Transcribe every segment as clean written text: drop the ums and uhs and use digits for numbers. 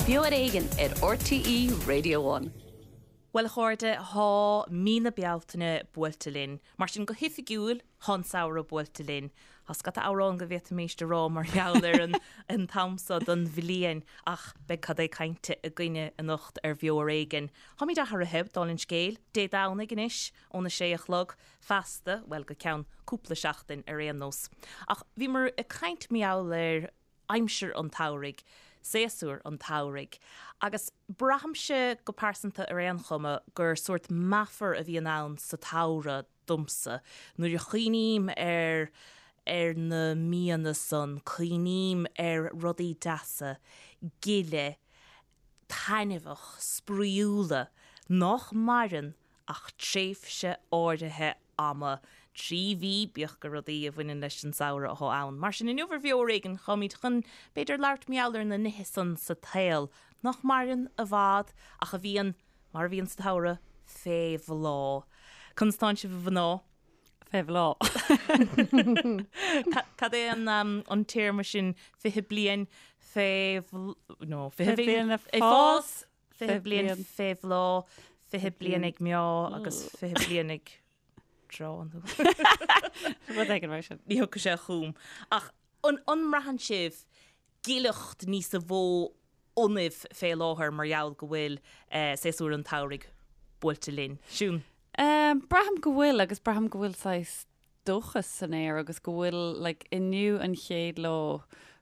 Beo ar Éigean ar RTÉ Radio One. Bhuel a chairde, thá mí na Bealtaine buailte linn. Mar sin, go hoifigiúil, thá an samhradh buailte linn. Thá scata amhrán go bhféadfaimis a rá mar gheall ar an an t-am so don bhliain, ach beidh cad é cainte againne anocht ar Bheo ar Éigean. Tháimid athraithe, dála an scéil, Dé Domhnaigh anois, óna sé a chlog, feasta, bhuel, go ceann cúpla seachtain ar aon nós. Ach bhíomar ag caint mar gheall ar aimsir an tsamhraidh, séasúr an tsamhraidh, agus braithimse go pearsanta ar aon chuma gur sórt meafar a bhíonn ann sa tsamhradh domsa. Nuair a chuimhním ar ar na míonna san, cuimhním ar rudaí deasa, gile, taitneamhach, spraíúla, nách maireann ach tréimhse áirithe ama, 3 mhí, bíodh gur rudaí a bhaineann leis an samhradh athá ann. Mar sin, inniu ar Bheo ar Éigean, táimid chun, b'fhéidir, labhairt mar gheall ar na nithe san sa tsaol nach maireann i bhfad ach a bhíonn, mar a bhíonn sa tsamhradh, fé bhláth. Conas tánn sibh a mhná? Fé bhláth. Cad é an téarma sin, 20 bliain fé, no, 20 bliain ag fás? 20 bliain fé bhláth, 20 bliain ag meá agus 20 bliain ag treá nó. Rud éigin mar sin. Ní thiocfaidh sé chugam. Ach an mbraitheann sibh gileacht níosa mhó ionaibh fé láthair mar gheall go bhfuil séasúr an tsamhraidh buailte linn? Siún? Braithim go bhfuil agus braithim go bhfuil saghas dóchas san aer agus go bhfuil like inniu an chéad lá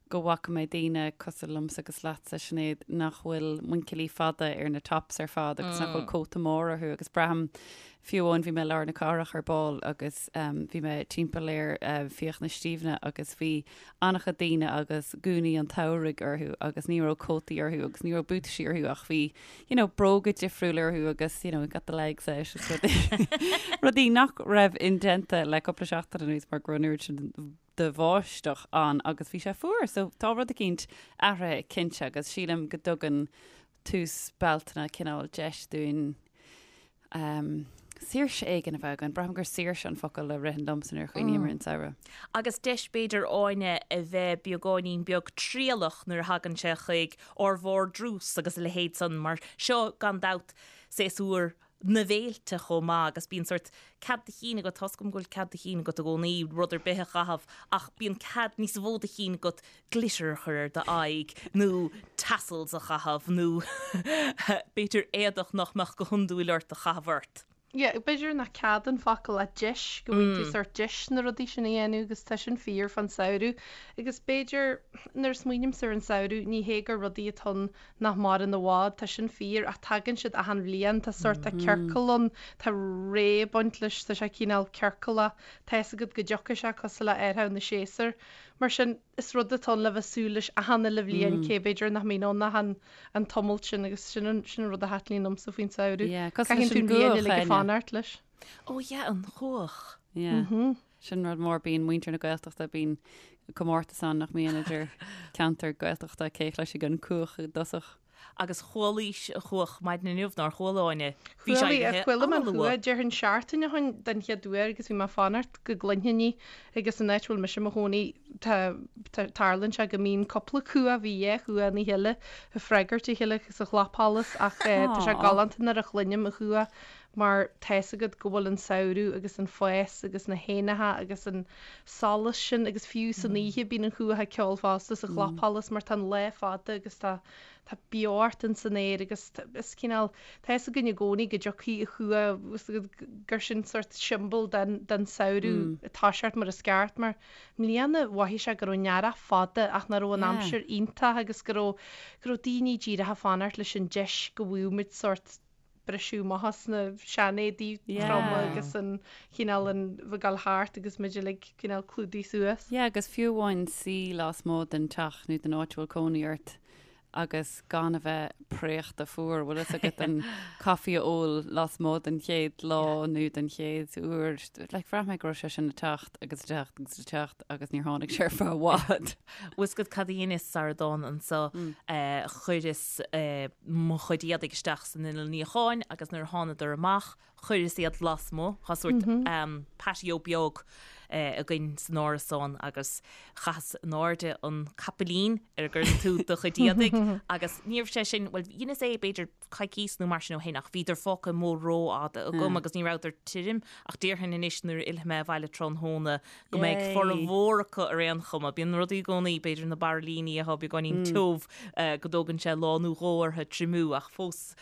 go bhfaca mé daoine cosúil liomsa agus leatsa Sinéad nach bhfuil muinchillí fada ar na tops ar fad agus nach bhfuil cóta mór orthu agus braithim fiú amháin bhí mé i lár na cathrach ar ball agus um, bhí mé timpeall ar uh, Fiachna Stiabhna agus bhí an-chuid daoine agus gúnaí an tsamhraidh orthu agus ní raibh cótaí orthu agus ní raibh buataisí orthu ach bhí you know, bróga difriúil orthu agus, you know, got the legs out is rudaí rudaí nach raibh indéanta le cúpla seachtain anuas mar go raibh an oiread sin de bháisteach ann agus bhí sé fuar. So tá rud eicínt athraithe cinnte agus sílim go dtugann tús Bealtaine cineál deis dúinn um, saoirse éigin a bheith againn. Braithim gur saoirse an focal a ritheann liomsa nuair a chuimhním ar an samhradh. Agus deis b'fhéidir Áine a bheith beagáinín beag trialach nuair a thagann sé chuig ár vardrús agus a leithéid san mar seo gan dabht séasúr na bhféilte chomh maith agus bíonn sórt cead do chinn agat, tá's agam go bhfuil cead do chinn agat i gcónaí rud ar bith a chaitheamh ach bíonn cead níos mó do chinn agat glitter a chur ar d'aghaidh nó tassels a chaitheamh nó b'fhéidir éadach nach mbeadh go hiondúil ort a chaitheamh ort. Yeah, b'fhéidir nach cead an focal ach deis, go bhfaigheann tú sórt deis na rudaí sin a dhéanamh agus tá sin fíor fán samhradh. Agus b'fhéidir, nuair a smaoinímse ar an samhradh, ní hé gur rudaí atá ann nach maireann i bhfad, tá sin fíor, ach tagann siad achan bhliain, tá sórt, tá ciorcal ann, tá ré ag baint leis, tá sé cineál ciorcalach, tá fhios agat go dtiocfaidh sé cosúil le athrú na séasúr. Mar sin, is rud atá ann le bheith súil leis achan uile bhliain, cé b'fhéidir nach mbíonn ann ach an an tumult sin agus sin an sin an rud a thaitníonn liomsa faoin samhradh. Yeah, cosúil leis Caitheann tú an an bhliain gcuach, uilig ag Áine. fanacht leis. Ó yeah, an chuach. Yeah. Sin rud mór, bíonn muintir na Gaeltachta, bíonn comórtas ann nach mbíonn idir ceantar Gaeltachta cé chloisfidh an cuach i dtosach. Agus chualaís an chuach maidin inniu, nár chuala Áine? Bhí sé Chuala, éirithe chuala mé an an-luath. chuach, déarfainn seachtain ó shin den chéad uair agus bhí mé ag fanacht go gcluinfinn í agus an áit a bhfuil mise i mo chónaí tá, tá, tarlaíonn sé go mbíonn cúpla cuach, bhí dhá chuach ina chéile ag freagairt a chéile sa chlapsholas ach eh, tá sé Aww. galánta nuair a chluinim an chuach mar tá fhios agat go bhfuil an samhradh agus an fás agus na héanacha agus an solas sin agus fiú san oíche bíonn an chuach ag ceol fosta sa chlapsholas mar tá an lá fada agus tá tá beocht in san aer agus is cineál tá fhios againn i gcónaí go dtiocfaidh an chuach gur sin sórt siombail den den samhradh ag toiseacht mar is ceart mar i mbliana mhothaigh sé go raibh an t-earrach fada ach nach raibh an aimsir iontach agus go raibh go raibh daoine díreach ag fanacht leis an deis go bhfaigheadh muid sórt briseadh amach as na seanéadaí troma agus an chineál an bheith ag dul thart agus muid uilig cineál clúdaithe suas. Yeah, agus fiú amháin suí lasmuigh den teach nó den áit a bhfuil cónaí ort agus gan a bheith préachta fuar, bhfuil fhios agat an caife a ól lasmuigh den chéad lá nó den chéad uair, like bhraith mé go raibh sé sin ag teacht agus ag teacht agus ag teacht agus níor tháinig sé ar feadh i bhfad. Bhfuil fhios agat cad a dheineas sara dtána anso, chuireas mo chuid éadaigh isteach san inneall níocháin agus nuair a thánadar amach, chuireas iad lasmuigh, tá sórt patio beag. againn san árasán agus chaitheas in airde an capaillín ar a gcuireann tú do chuid éadaigh agus ní raibh sé sin, bhuel dheineas é b'fhéidir coicís nó mar sin ó shin ach bhíodar fágtha amuigh rófhada agam agus ní rabhadar tirim ach déarfainn anois nuair a fhillfidh mé abhaile tráthnóna go mbeidh formhór acu ar aon chuma. Bíonn rudaí i gcónaí, b'fhéidir na bairillíní atá beagáinín tiubh go dtógann sé lá nó dhó orthu triomú ach fós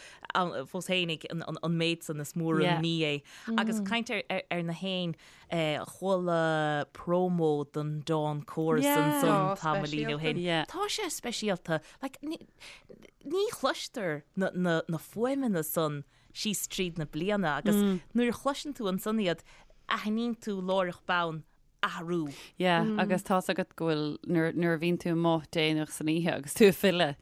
fós fhéinig an méid san is mór an ní é. Agus caint ar na héin, Chuala promo don Dawn Chorus ansan tamaillín ó shin. Tá sé speisialta. Like, ní chloistear na fuaimeanna san síos tríd na bliana agus nuair a chloiseann tú ansan iad, aithníonn tú láithreach bonn athrú. Yeah, agus tá's agat go bhfuil, nuair a bhíonn tú amuigh déanach san oíche agus tú ag filleadh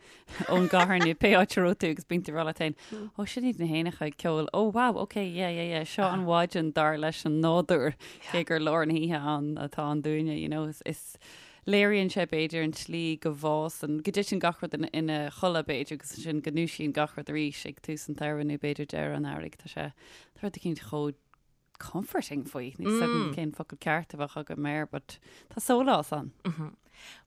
ón gcathair nó pé áit a raibh tú agus bíonn tú ag rá leat féin, ó sin iad na héanacha ag ceol, ó wow, ok, yeah, yeah, yeah, seo an mhaidin dar leis an nádúr, cé gur lár na hoíche ann atá ann dúinne, you know, is léiríonn sé b'fhéidir an tslí go bhfásann, go dtiteann gach rud ina chodladh b'fhéidir agus ansin go ndúisíonn gach rud arís ag tús an tsamhraidh nó b'fhéidir deireadh an earraigh, tá sé, tá rud eicínt chomh comforting faoi, níl 's agam cén focal ceart a bheadh agam air, but tá sólás ann.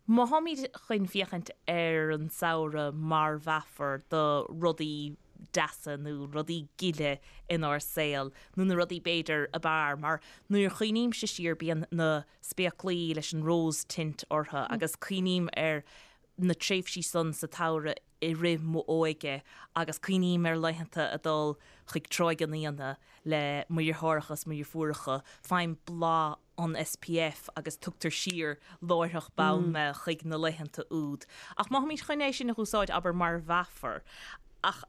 Má tháimid chun féachaint ar an samhradh mar mheafar do rudaí deasa nó rudaí gile inár saol, nó na rudaí b'fhéidir ab fhearr, mar nuair a chuimhnímse siar bíonn na spéaclaí leis an rose tint orthu agus cuimhním ar na tréimhsí san sa tsamhradh i rith m'óige agus cuimhním ar laethanta a dul chuig Tráigh an Fhíona le mo dheartháireacha is mo dheirfiúracha, faighim blas an SPF agus tugtar siar láithreach bonn mé chuig na laethanta úd. Ach má tháimid chun é sin a úsáid, abair, mar mheafar, ach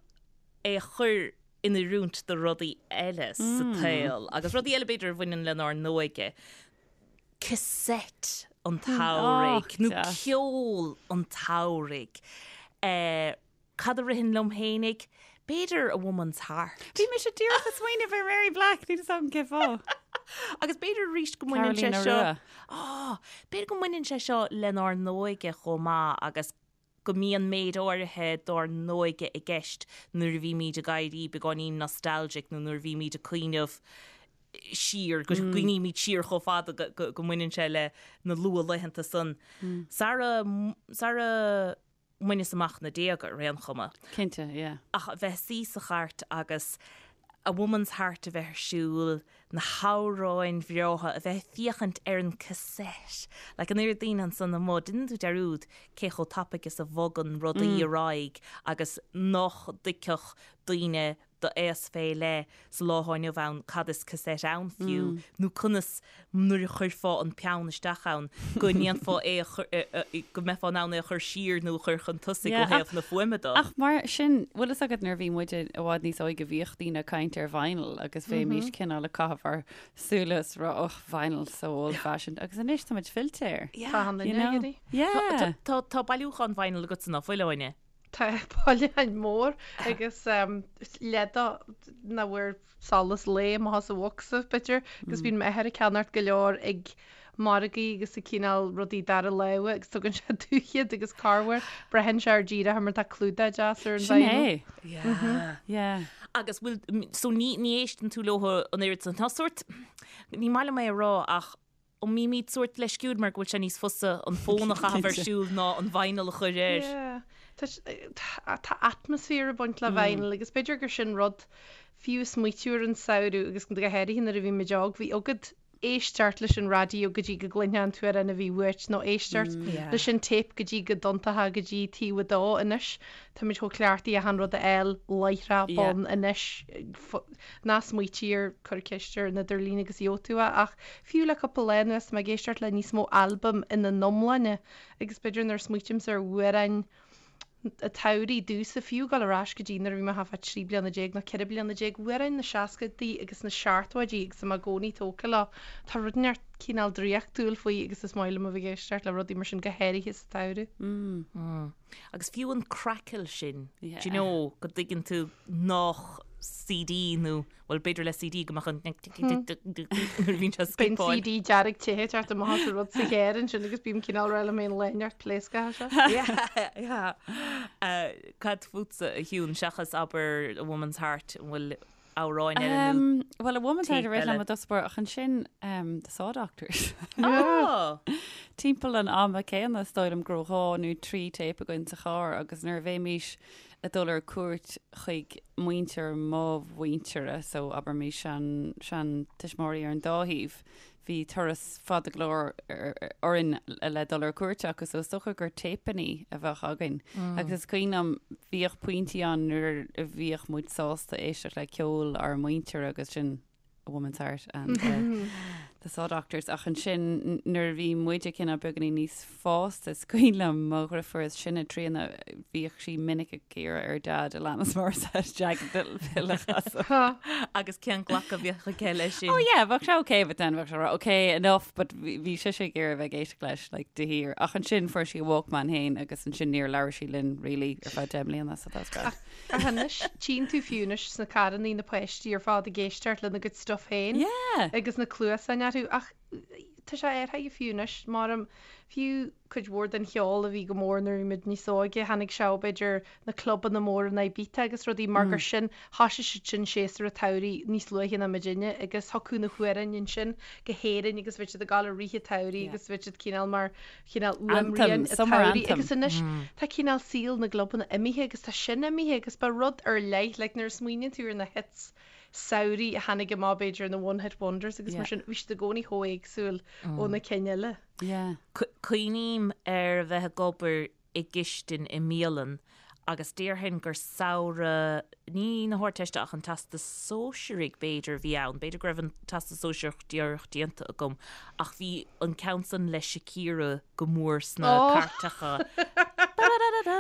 é a chur in oiriúint do rudaí eile sa tsaol agus rudaí eile b'fhéidir a bhaineann lenár n-óige, cassette an tsamhraidh nó ceol an tsamhraidh. Cad a ritheann liom fhéinig? B'fhéidir A Woman's Heart. Bhí mise díreach ag smaoineamh ar Mary Black, níl 'fhios agam cén fáth. Agus b'fhéidir arís go mbaineann sé seo, b'fhéidir go mbaineann sé seo lenár n-óige chomh maith agus go mbíonn méid áirithe dár n-óige i gceist nuair a bhímid ag éirí beagáinín nostalgic nó nuair a bhímid ag cuimhneamh siar, go gcuimhnímid siar chomh fada go mbaineann sé le na luathlaethanta san. Sara, sara mbaineas amach na déaga ar aon chuma. Cinnte, yeah. Ach a bheith suí sa chairt agus A Woman's Heart a bheith ar siúl, na hamhráin bhreátha, a bheith ag féachaint ar an cassette. Like an oiread daoine ansan amuigh, déanann tú dearúd cé chomh tapaidh is a bhogann rudaí ar aghaidh agus nach dtuigfeadh daoine d'aos fé leith sa lá atá inniu ann cad is cassette ann fiú nó conas nuair a chuirfeá an peann isteach ann go ndéanfá é a chur, go mbeifeá in ann é a chur siar nó a chur chun tosaigh ó thaobh na fuaime de. Ach mar sin, bhfuil fhios agat nuair a bhí muide i bhfad níos óige bhíodh daoine ag caint ar vinyl agus bheimis cineál ag caitheamh ár súile is rá oh vinyl so old fashioned agus anois tá muid fillte air. Tá an You know? Yeah. Tá tá bailiúchán vinyl agatsa ná fuil, Áine? Tá bailiúchán mór agus leath de nach bhfuair solas lae amach as an bhocsa, b'fhéidir, agus bíonn m'athair ag ceannacht go leor ag margaí agus ag cineál rudaí dara láimhe agus tugann sé domh iad agus corruair braitheann sé ar díreach mar tá clúdach deas ar an Sin vinyl. é. Yeah. Yeah. Agus bhfuil, so ní, ní éisteann tú leo an oiread san. Tá sórt, ní maith liom é a rá ach An mbímid sórt leisciúil mar go bhfuil sé níos fusa an fón a chaitheamh ar siúl ná an vinyl a chur air? Yeah. Tá tá atmaisféar ag baint le vinyl agus b'fhéidir gur sin rud fiú smaoitiú ar an samhradh agus go háirithe nuair a bhí muid óg, bhí agat éisteacht leis an raidió go dtí go gcluinfeá an t-amhrán a bhí uait nó éisteacht leis an téip go dtí go dtiontófá go dtí taobh a dó. Anois táimid chomh cleachtaithe achan rud a fháil láithreach bonn anois. Ná smaoitigh air, cuir ceist ar an idirlíon agus gheobhaidh tú é, ach fiú le cúpla lá anuas tá mé ag éisteacht le níos mó albaim ina n-iomláine agus b'fhéidir nuair a smaoitímse ar amhráin an tsamhraidh domhsa, fiú dul ar ais go dtí nuair a bhí mé thart fá 13 bliana nó 14 bliana, amhráin na seascaidí agus na seachtóidí agus tá mé i gcónaí tógtha leo. Tá rud inteacht cineál draíochtúil faoi agus is maith liom a bheith ag éisteacht le rudaí mar sin go háirithe sa tsamhradh. Agus fiú an crackle sin, do you know, go dtuigeann tú nách CD nó, bhuel, b'fhéidir le CD go mbeadh an nuair a bhíonn sé Bíonn skipáil. CD dearg te ag teacht amach as an rud sa charr ansin agus bím cineál rá liom féin lá inteacht pléasctha seo. Yeah, yeah. Cad fútsa, a Shiún, seachas abair A Woman's Heart, an bhfuil. amhráin eile nó Bhuel, A Woman's Heart téip a rith eile? liom i dtosach báire ach ansin The Saw Doctors. Oh! Timpeall an ama céanna is dóigh liom go raibh 2 nó 3 téip againn sa charr agus nuair a bhéimís ag dul ar cuairt chuig muintir mo mhuintire, so abraimis sean, sean tuismitheoirí ar an dá thaobh, bhí turas fada go leor orainn le dul ar cuairt acu so is dócha gur téipeannaí a bheadh againn. Agus is cuimhin liom, bhíodh pointí ann nuair a bhíodh muid sásta éisteacht le ceol ár muintire agus sin A Woman's Heart and the, the Saw Doctors ach ansin nuair a bhí muide cineál beagáinín níos fásta is cuimhin liom mo dheirfiúr is sine Tríona bhíodh sí minic ag iarraidh ar Dad Alanis Morissette Jagged Little Pill a chasadh. Agus cén glacadh a bhíodh aige leis sin? Oh yeah, bheadh sé okay but then bheadh sé ag rá okay enough but bhí sise ag iarraidh bheith ag éisteacht leis like de shíor. Ach ansin fuair sí a Walkman féin agus ansin níor labhair sí linn really ar feadh 10 mbliana so that's grand. Ach anois, tchíonn tú fiú anois sna carrannaí na páistí ar fad ag éisteacht lena gcuid stuff féin Yeah. agus na cluasáin orthu ach tá sé athraithe fiú anois, maram, fiú cuid mhór den cheol a bhí go mór nuair a bhí muid níos óige, tháinig sé ó b'fhéidir na clubanna móra in Ibiza agus rudaí mar gur sin, thoisigh siad sin séasúr an tsamhraidh níos luaithe ná muidinne agus thiocfadh na hamhráin ansin go hÉirinn agus bheadh siad ag gabháil i rith an tsamhraidh agus bheadh siad cineál mar chineál Anthem, uaimrian an summer tsamhraidh anthem. agus anois tá cineál saol na gclubanna imithe agus tá sin imithe agus ba rud ar leith like nuair a smaoiníonn tú ar na hits samhraidh a tháinig amach b'fhéidir na one hit wonders agus mar sin bhí siad i gcónaí chomh éagsúil ó na cinn eile. Yeah. Cuimhním ar a bheith ag obair i gcistin i mbialann agus déarfainn gur samhradh, ní na hArdteiste ach an Teastas Sóisearaigh b'fhéidir a bhí ann, b'fhéidir go raibh an Teastas Sóisearach díreach déanta agam ach bhí an ceann san le Shakira go mór sna cairteacha.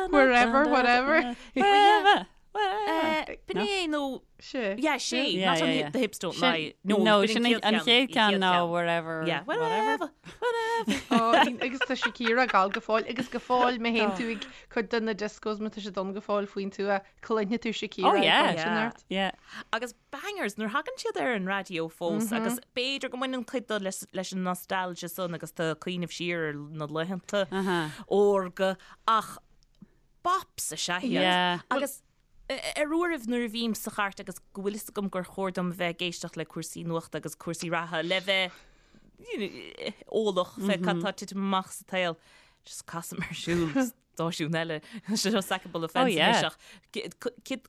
Wherever, whatever. Wherever. B'in é nó Sé. Yeah, sé. Yeah, Not yeah, on yeah. the hips don't Sin- lie. No, no, b'in sin an chéad ceann ná wherever, Yeah, whatever. wherever, whatever. Ó, agus tá Shakira ag gabháil go fóill agus go fóill má théann tú ag cuid de na discos má tá siad ann go fóill faoin tuath, cluinfidh tú Shakira Oh, ag yeah. caint Yeah. ort. Yeah. Agus bangers nuair thagann siad ar an raidió fós agus b'fhéidir go mbaineann cuid de leis, leis an nostalgia san agus tú ag cuimhneamh siar ar na laethanta órga ach bops is ea iad. Yeah. Agus Ar uairibh nuair a bhím sa chairt agus go bhfuil fhios agam gur chóir dom a bheith ag éisteacht le cúrsaí nuachta agus cúrsaí reatha le bheith eolach fé cad tá ag titim amach sa tsaol, just casaim ar siúl stáisiún eile, seo sackable offence anois ach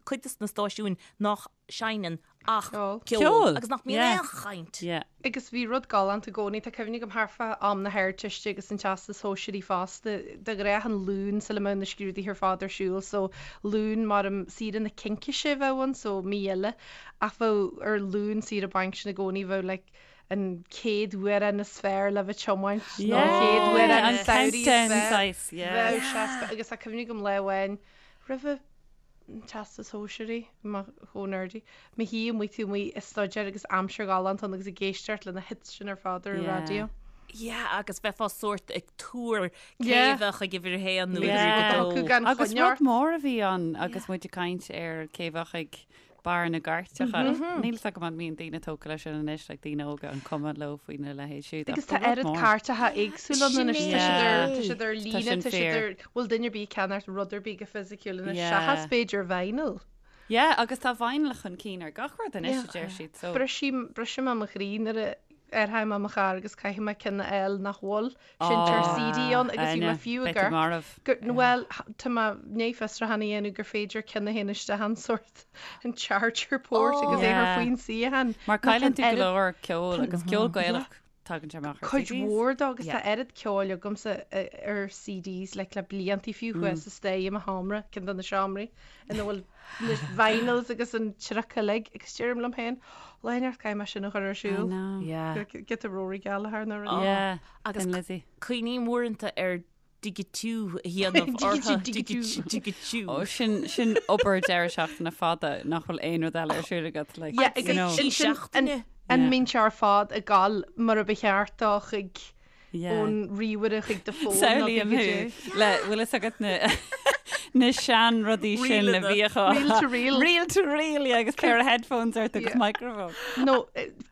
cuid de na stáisiúin nach seinneann ach Ceol. ceol agus nach mbíonn Yeah. aon chaint. Yeah. Agus bhí rud galánta i gcónaí, tá cuimhne agam thart fá am na hArdteiste agus an Teastais Shóisearaigh fosta, de ghnáth an Luan sula mbeadh na scrúduithe ar fad ar siúl, so Luan maram saoire na Cincíse a bheadh ann, so mí eile, ach bheadh ar Luan saoire bainc sin i gcónaí bheadh like an chéad amhrán is fearr le bheith tiomáint nó an chéad Yeah, amhrán an samhraidh is countdown fearr. saghas, yeah. Bheadh sé, agus tá cuimhne agam lá amháin roimhe an Teastas Sóisearaigh, mé chomh nerdy. Mo shuí amuigh taobh amuigh ag staidéar agus aimsir ghalánta ann agus ag éisteacht le na hits sin ar fad ar an Yeah. raidió. Yeah, agus bheifeá sórt ag tuar cé Yeah. bheadh ag uimhir a haon nó Yeah. uimhir a dó. Thiocfadh gan Agus choinne rud ort. mór a bhí ann agus muid ag caint ar cé bheadh ag barr na gcairteacha. Níl fhios agam an mbíonn daoine tógtha leis sin anois, like daoine óga an cuma leo faoina leithéid siúd. Agus ach tá ba rud oiread mór. cairteacha éagsúla ann anois, tá siad ar, tá siad ar Tá líne, sin tá siad fíor. ar, bhfuil duine ar bith ag ceannacht rud ar bith go fisiciúil anois, Yeah. seachas b'fhéidir vinyl. Yeah, agus tá vinyl chun cinn ar gach rud anois, a deir siad, so. Brisim, briseann sé mo chroí nuair a athraím mo charr agus caithfidh mé ceann a fháil nach bhfuil seinnteoir CD ann agus bhí mé fiú ag amharc gur, bhuel, tá mé i ndiaidh fiosrúchán a dhéanamh gur féidir ceann a théann isteach an sórt, an charger port agus é chur faoin suíochán. Mar cailleann tú go leor ceoil agus ceol Gaelach tagann sé amach ar Cuid CDs. mhór dó agus tá oiread ceoil agamsa ar CDs like le bliantaí fiú thuas sa staighre i mo sheomra, ceann de na seomraí ina bhfuil na vinyls agus an triuc uilig agus deirim liom féin, lá inteacht caithfidh mé sin a chur ar I siúl. know. Yeah. Giota Rory Gallagher nó rud. Yeah. Agus Thin Lizzy. cuimhním uaireanta ar digitiú a dhéanamh orthu. Digitiú, Digitiú. Ó, sin, sin obair deireadh seachtaine fada nach bhfuil aon rud eile ar siúl agat, like, Yeah, you agus know. ansin an, seachtaine. an Yeah. mbíonn sé ar fad ag gabháil mar a ba cheart dó chuig Yeah. ón ríomhaire chuig do fón nó Samhlaím chuig thú le bhfuil fhios agat na. Na sean rudaí sin a bhíodh á. Reel to reel. Reel to reel, yeah, agus pair of headphones ort agus microphone. No,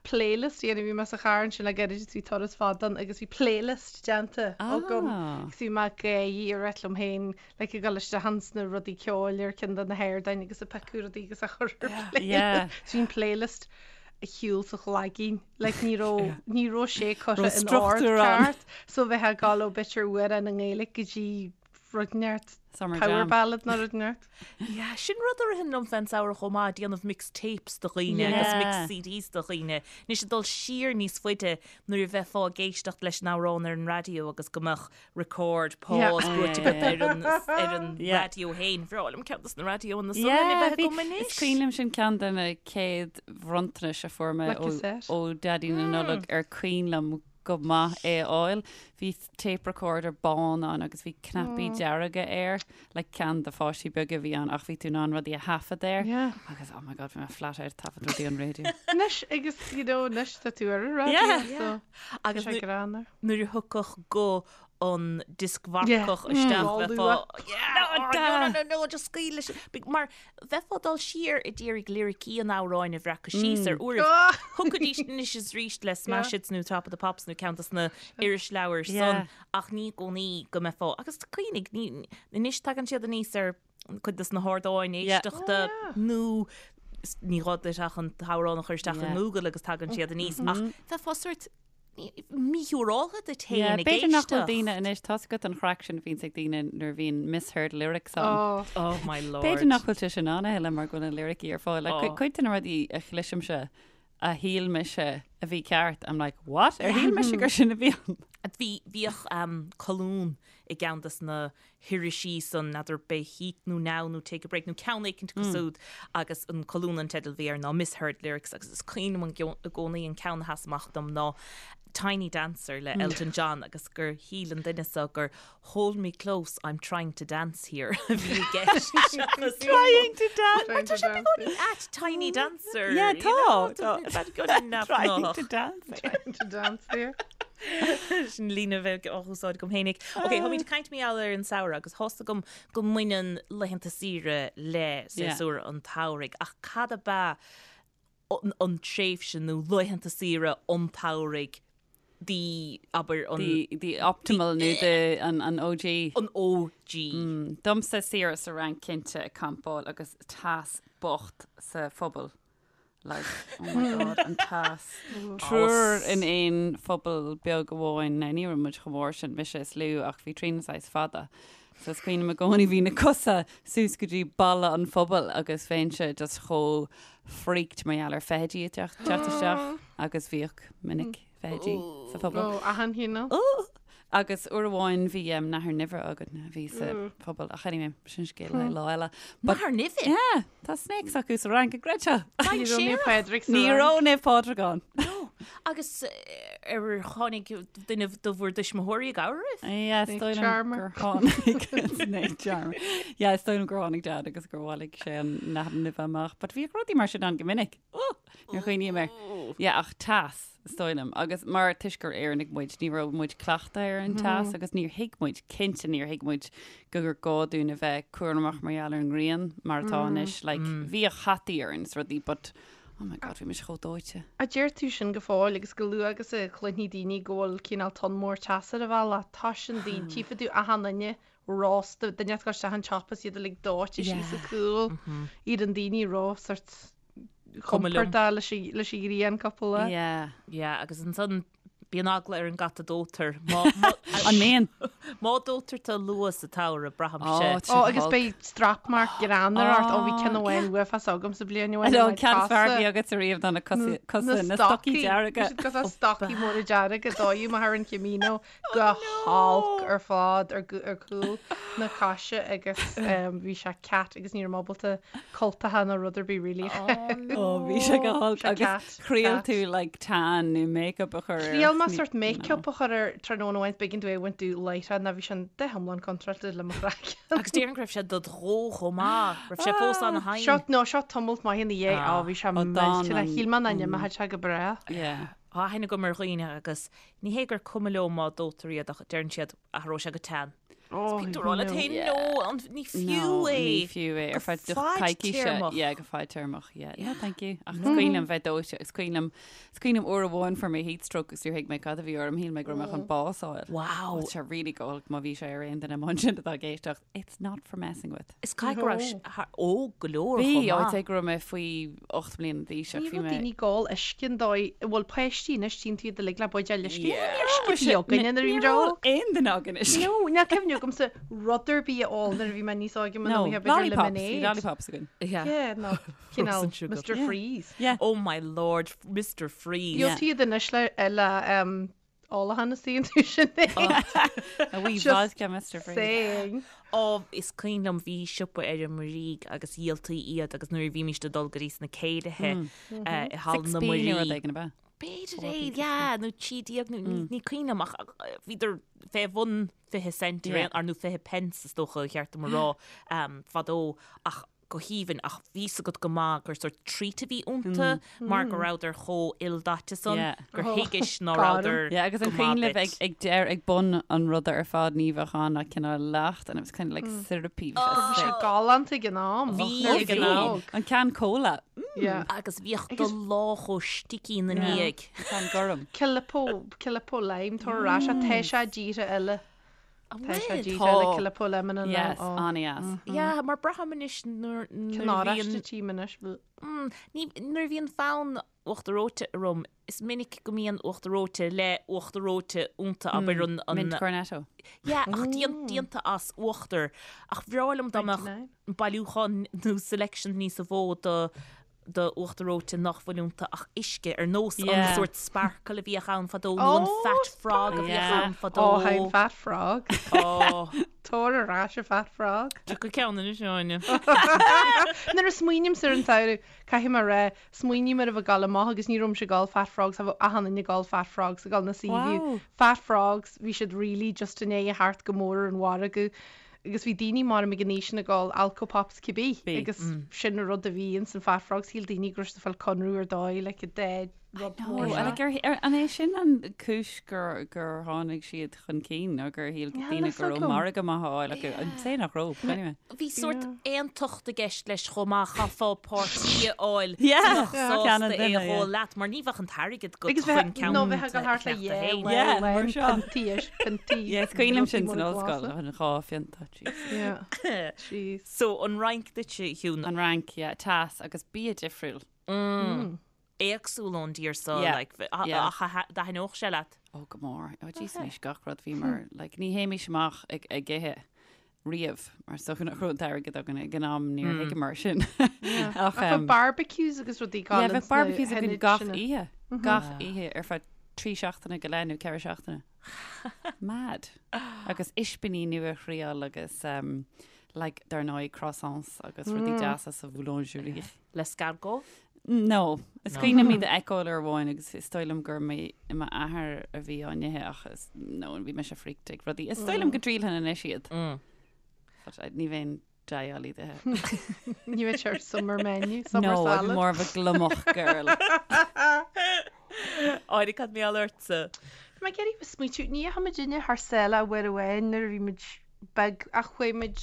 playlist a dhéanamh, bhí mé sa charr ansin le gairid agus bhí turas fada ann agus bhí playlist déanta agam agus bhí mé ag gáirí ag rá liom féin like ag dul isteach ins na rudaí ceoil ar ceann de na hardáin agus ag piocadh rudaí agus á chur ar playlist. So bhí an playlist ar shiúl sa chloigeann. Like ní raibh, ní raibh sé curtha in ord ceart. So bheith ag dul ó b'fhéidir amhrán i nGaeilge go dtí rud inteacht Summer power jam. ballad nó rud inteacht. Yeah, sin rud a ritheann liom fén samhradh chomh maith, déanamh mix tapes do dhaoine agus mix CDs do dhaoine. Anois ag dul siar níos faide nuair a bheifeá ag éisteacht leis an amhrán ar an raidió agus go mbeadh record, pause buaite agat ar an ar an raidió féin. Bhreá liom ceann dos na raidiónna san a bheith agam anois. Is cuimhin liom sin ceann de na chéad bhronntanais a fuair mé ó Daidí na Nollag ar cuimhin liom go maith é a fháil. Bhí tape recorder bán ann agus bhí cnaipí dearga air, like ceann do pháistí beaga a bhí ann ach bhí tú in ann rudaí a thaifead air. Yeah. Agus oh my god bhí mé flat out ag taifead rudaí an raidió. Anois agus you know anois tá tú ar an raidió Yeah. so Agus tá sé greannmhar. nuair a thiocfadh guth an dioscmharcach Yeah. isteach Mm. bheifeá yeah, oh, da. no, no, no, no, just scaoil leis. Mar bheifeá ag dul siar ag iarraidh liricí an amhráin a bhreacadh síos ar uairibh. Ah! Thiocfaidís anois is arís le Smash Hits nó Top of the Pops nó ceann dos na irisleabhair san Yeah. ach ní i gcónaí go mbeifeá agus cuimhnigh ní anois tagann siad aníos ar cuid dos na hardáin Yeah. éisteachta Oh, yeah. nó ní gá duit ach an t-amhrán a chur isteach Yeah. i nGoogle agus tagann siad aníos ach bheifeá sórt míshiúráltha duit féin Yeah, ag b'fhéidir nach bhfuil éisteacht. daoine anois, tá's agat an chraic sin a bhíonns ag daoine nuair a bhíonn misheard lyrics ann. Oh. Oh my lord. B'fhéidir nach bhfuil sé sin ann a thuilleadh mar go bhfuil na liricí ar fáil. Like, Oh. cuid de na rudaí a chloisimse a shíl mise a bhí ceart, I'm like, what? Ar shíl mise gur sin a bhí ann? Bhí, bhíodh um, colún i gceann des na hirisí san, n'fheadar b'é Heat nó Now nó Take a Break nó ceann éicint acu siúd agus an colún an teideal a bhí air ná Misheard Lyrics agus is cuimhin liom i gcónaí an ceann a sheas amach dom ná Tiny Dancer le Elton John agus gur shíl an duine seo gur Hold me close, I'm trying to dance here a bhí i gceist seachas Trying to dance. Mar tá sé beagáinín ait Tiny Dancer. Yeah, you know, tá, tá. Beagáinín Trying neamhghnách. to dance. Trying to dance here. Sin líne a bheadh á húsáid agam fhéinig. Ok, táimid ag caint mar gheall ar an samhradh agus tá's agam go mbaineann laethanta saoire le séasúr an tsamhraidh ach cad ab ea an tréimhse nó laethanta saoire an tsamhraidh the, abair, an. The, the optimal nó the, an, an OG. An OG. Domsa saoire sa Fhrainc cinnte ag campáil agus teas bocht sa phuball. Like, oh my god, an teas. Triúr in aon phuball beag amháin. Now, ní raibh muid chomh mór sin, mise is lú, ach bhí Tríona saghas fada. So is cuimhin liom i gcónaí bhí na cosa suas go dtí balla an phubaill agus bheinnse just chomh freaked mar gheall ar feithidí ag teacht teacht isteach agus bhíodh minic feithidí sa phuball. Ó, achan chineál. Agus uair amháin bhí nathair nimhe againn a bhí sa phuball ach anyway, sin scéal le lá eile. But, Nathair nimhe? Yeah, tá snakes acu sa Fhrainc, an gcreidfeá. Ní raibh Naomh Pádraig sa Ní Fhrainc. raibh Naomh Pádraig ann. No. Agus ar tháinig duine de bhur dtuismitheoirí i gcabhair oraibh? Yeah, is Snake dóigh liom charmer. gur tháinig Snake charmer. Yeah, is dóigh liom gur tháinig Dad agus gur bhailigh sé an nathair nimhe amach. But bhíodh rudaí mar sin ann go minic. Oh! Nuair a chuimhním air. Yeah, ach teas, is dóigh liom. Agus mar toisc gur Éireannaigh muid, ní raibh muid cleachtaithe ar an teas agus níor thuig muid, cinnte níor thuig muid gur gá dúinn a bheith cúramach mar gheall ar an ngrian mar atá anois. Like, bhíodh hataí orainn is rudaí but, oh my God, bhí mise chomh dóite. A deir tú sin go fóill agus go luath agus a chluinfidh daoine go bhfuil cineál tonn mór teasa ar an bhealach, tá sin daoine, tchífidh tú achan duine rósta, duine ag dul isteach an siopa is iad uilig dóite síos an cúl, iad an daoine ró sort Cuma liom. compordach leis an leis an ghrian cúpla lá. Yeah. Yeah, agus ansan bíonn eagla ar an gcat a dóitear. Má, má, An mbíonn? má dóitear tú luath sa tsamhradh, braithimse. Ó, Ó, agus beidh strap mark greannmhar ort. Ó, bhí ceann amháin uafásach agam sa bhliain amháin. An ceann is fearr a bhí agat ariamh ná na cosa, cosa, na stocaí dearga. Bhí siad cosúil le stocaí móra dearga, dódh mé thar an Camino go holc ar fad ar chúl na coise agus bhí sé cat agus ní raibh mé ábalta cultacha nó rud ar bith really. Ó bhí sé go holc agus thriail tú like tan nó make-up a chur ar. Thriail mé sort make-up a chur ar tráthnóna amháin b'éigean domh é a bhaint domh láithreach nó bhí sin go hiomlán contráilte le mo chraiceann. Agus déarfainn go raibh sé dod dhó chomh maith, raibh sé fós ana-thinn. Seo, no, seo tamalt maith ina dhiaidh, á bhí sé millteanach, shíl mé nach n-imeodh sé go brách. Yeah. Tá aithne agam ar dhaoine agus ní hé gur cuma leo má dóitear iad ach deireann siad athróidh sé go tan. Oh, Bíonn tú ag rá leat féin, no, an- ní fiú é. Ní fiú é ar Go feadh do coicíse. fadtéarmach. Yeah, go fadtéarmach, yeah. No, thank you. Ach is cuimhin liom bheith dóite, is cuimhin liom, is cuimhin liom uair amháin fuair mé heat stroke agus níor thuig mé cad a bhí orm, shíl mé go raibh mé chun bás a fháil. Wow. Tá sé really go holc má bhí sé ar aon duine amuigh ansin atá ag éisteacht. It's not for messing with. Is caithfidh go raibh sé óg go leor Bhí, chomh I'd maith. say go raibh mé faoi 8 mbliana d'aois ach Ní bhí raibh mé. daoine ag ól uisce an dóigh a bhfuil páistí anois, tchíonn tú iad uilig le buidéal uisce. Yeah. Ní raibh uisce bhí againne nuair a bhí Ní muid raibh óg. aon duine againn uisce. No, níl cuimhne agamsa rud ar bith a ól nuair a bhí mé níos óige No, muna bhí b'fhéidir lollipops, bhí lemonade. lollipops againn. Yeah. Yeah, no, cineál Frozen sugar. Mr. Yeah. Freeze. Yeah. Oh my lord, Mr. Freeze. Gheobhaidh tú iad anois le, le um, Olachan is tú sin é. A wee Just vodka Mr Freeze. Saying. Ó, is cuimhin liom bhí siopa ar an Muirígh agus dhíoltaí iad agus nuair a bhímís ag dul go dtí sna céilithe i Halla na 6p nó rud Muirí. éigin ab ea? B'fhéidir é, yeah, nó 13 nó ní cuimhin liom ach bhíodar fé bhun 20 cent ar aon, ar nó 20 pence is dócha ba cheart dom a rá fadó ach go haoibhinn ach bhí 's agat go maith gur sórt treat a bhí iontu mar go rabhadar chomh ildaite san Yeah. gur thuigis ná Gorm. rabhadar Yeah, agus an go cuimhin maith libh ag, duit. ag deir ag bun an ruda ar fad ní bheadh ann ach cineál leacht and it was kind of like syrupy. Bhí sé Bhí sé sick. galánta ag an am. Bhí Nuair a ag bhí an am. óg. An ceann cola. Mm, Yeah. Agus bhíodh do lámh chomh sticky ina ndiaidh. An ceann gorm. Calippo, Calippo lime, tar ar ais, tá sé i dtíortha eile. An Tá sé bhfuil? díreach le Tá. Calippo lemon and Yes, lime. an-deas. Yeah, mar braithim anois nuair nuair Cén a oráiste bhíonn tím anois. Mm, ní, nuair a bhíonn fonn uachtar reoite orm, is minic go mbíonn uachtar reoite le uachtar reoite iontu, abair an, an, Mint cornetto. yeah, ach déan, déanta as uachtar. Ach bhreá liom dá mbeadh 99. bailiúchán nó selection níosa mhó do do uachtar reoite nach bhfuil iontu ach uisce, ar nós an Yeah. sórt sparkle a bhíodh ann fadó nó an Oh, fat frog a bhíodh Yeah. ann fadó. Ó, thaim Fat Frog. Ó, Tabhair ar ais an Fat Frog. Tiocfaidh ceann anois, Áine. Nuair a smaoinímse ar an samhradh, caithfidh mé a rá, smaoiním ar a bheith ag gabháil amach agus ní raibh mise ag ól Fat Frogs, bheadh achan duine ag ól Fat Frogs ag gabháil na Seaview. Wow. Fat Frogs, bhí siad really just i ndiaidh a theacht go mór ar an mhargadh. Agus bhí daoine maram ag an aois sin ag ól alcopops cibé Bhí. agus sin an rud a bhí ins an Fat Frogs, shíl daoine go raibh siad ag fáil conradh ar dóigh like a dead rud No, mór and seo. like, ar, ar, an é sin an cúis gur, gur tháinig siad chun cinn nó gur shíl Níl daoine fhios go raibh agam. margadh maith á fháil acu? I'd say nach raibh, but anyway. Bhí sórt aontacht i gceist leis chomh maith, chaithfeá páirtí a fháil Yeah. a bheadh Yeah. Ceann an sásta é a duine, yeah. dh'ól leat, mar ní bheadh an t-airgead agat Agus chun bheith, ceann nó bheith ag a dul thart le cheannach do yeah, féin. well, Yeah, mar well, seo. piontaí is piontaí. Yeah, is cuimhin liom rudaí sin san móra ollscoil, glasa. an dhá phionta, jeez. Yeah. Jeez. So, an Fhrainc duitse, a Shiún, An Fhrainc, yeah, teas agus bia difriúil. éagsúil ón dtír seo, Yeah, like, a- yeah. ach a- d'aithneodh sé leat. Ó, go mór. Ó, jeez, anois gach rud bhíomar, like, ní théimis amach ag, ag ithe riamh, mar is dócha nach raibh an t-airgead againn ag an am níor thuigeamar sin. Ach, Ach bheadh um, barbecues agus rudaí yeah, galánta bheadh sna barbecues againn hionaid gach sin. oíche. Gach oíche ar feadh trí seachtaine go leith nó ceithre seachtaine. Mad. Agus ispíní nua a thriail agus, um, like, dar ndóigh croissants agus rudaí deasa sa bhoulangerie. L'escargot? No. Is cuimhin liom iad a fheiceáil uair amháin agus is dóigh liom gur m'athair a bhí á n-ithe ach is, no, bhí mise freaked ag rudaí. Is dóigh liom go dtriailfinn anois iad. But I, ní bheinn deighil iad a ithe. Ní bheadh sé ar summer menu, summer No, I'd be salad. more of a gliomach girl. Áine, cad mar gheall ortsa? Bhí mé ag iarraidh smaoitiú, ní dheachaigh muid inne thar sáile uair amháin nuair a bhí muid beag ach chuaigh muid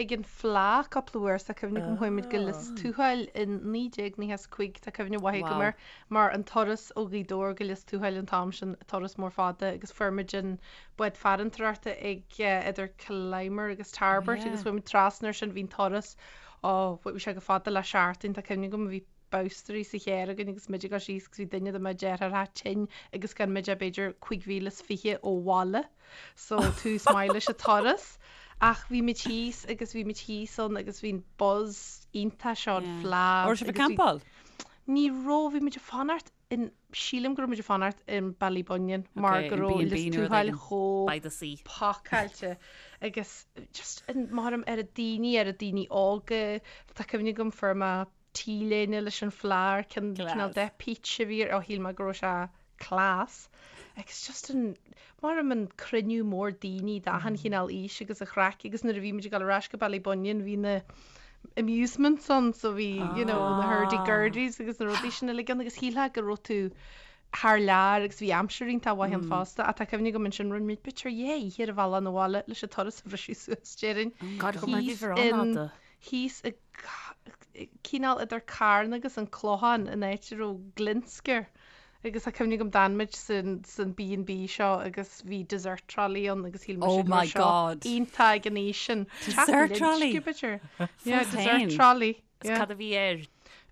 ag an Fleadh cúpla uair tá cuimhne agam chuaigh muid go Lios Tuathail in 1995 tá cuimhne mhaith agam Wow. air mar an turas ó Ghaoth Dobhair go Lios Tuathail an t-am sin turas mór fada agus fuair muid an bád farantóireachta ag idir Killimer agus Tarbert yeah. agus chuaigh muid trasna ar sin bhí an turas ó bhí sé chomh fada le seachtain tá cuimhne agam bhí boscairí sa charr againn agus muid ag dul síos agus bhí duine de mo dheartháireacha tinn agus gan muid ach b'fhéidir 25,000 ó bhaile so tús maith leis an turas. Ach bhí muid thíos agus bhí muid thíos ann agus bhí an buzz iontach seo an Yeah. Fleadh. Raibh sibh ag agus bhí- campáil? Ní raibh, bhí muid ag fanacht in, sílim go raibh muid ag fanacht in Ballybunion mar Okay, go in raibh B&B Lios nó rud Tuathail éigin. chomh By the sea. pacáilte agus just an maram ar a daoine, ar a daoine óga, tá cuimhne agam fuair mé T-léine leis an Fleadh, cin- cineál Class. de peach a bhí air, ó shíl mé go raibh sé class. Agus just an, maram an cruinniú mór daoine d'achan chineál aois agus an chraic agus nuair a bhí muid ag dul ar ais go Ballybunion bhí na amusements ann so bhí, you know, na hurdy-gurdies agus na rudaí sin uilig ann agus shílfeá go raibh tú. thar lear agus bhí aimsir iontach mhaith ann fosta ach tá cuimhne agam ansin rinne muid b'fhéidir dhá oíche ar an bhealach 'na bhaile leis an turas a bhriseadh suas déarfainn. God go mar bhí bhur an-fhada. Thíos i cineál idir Carna agus an Clochán in áit a raibh Glinsce agus tá cuimhne agam d'fhan muid san san B&B seo agus bhí dessert trolley ann agus shíl mise Oh go my raibh seo God. iontach ag an aois sin. Dessert trolley? B'fhéidir. Yeah, Fós dessert féin. trolley. Is Yeah. cad a bhí air?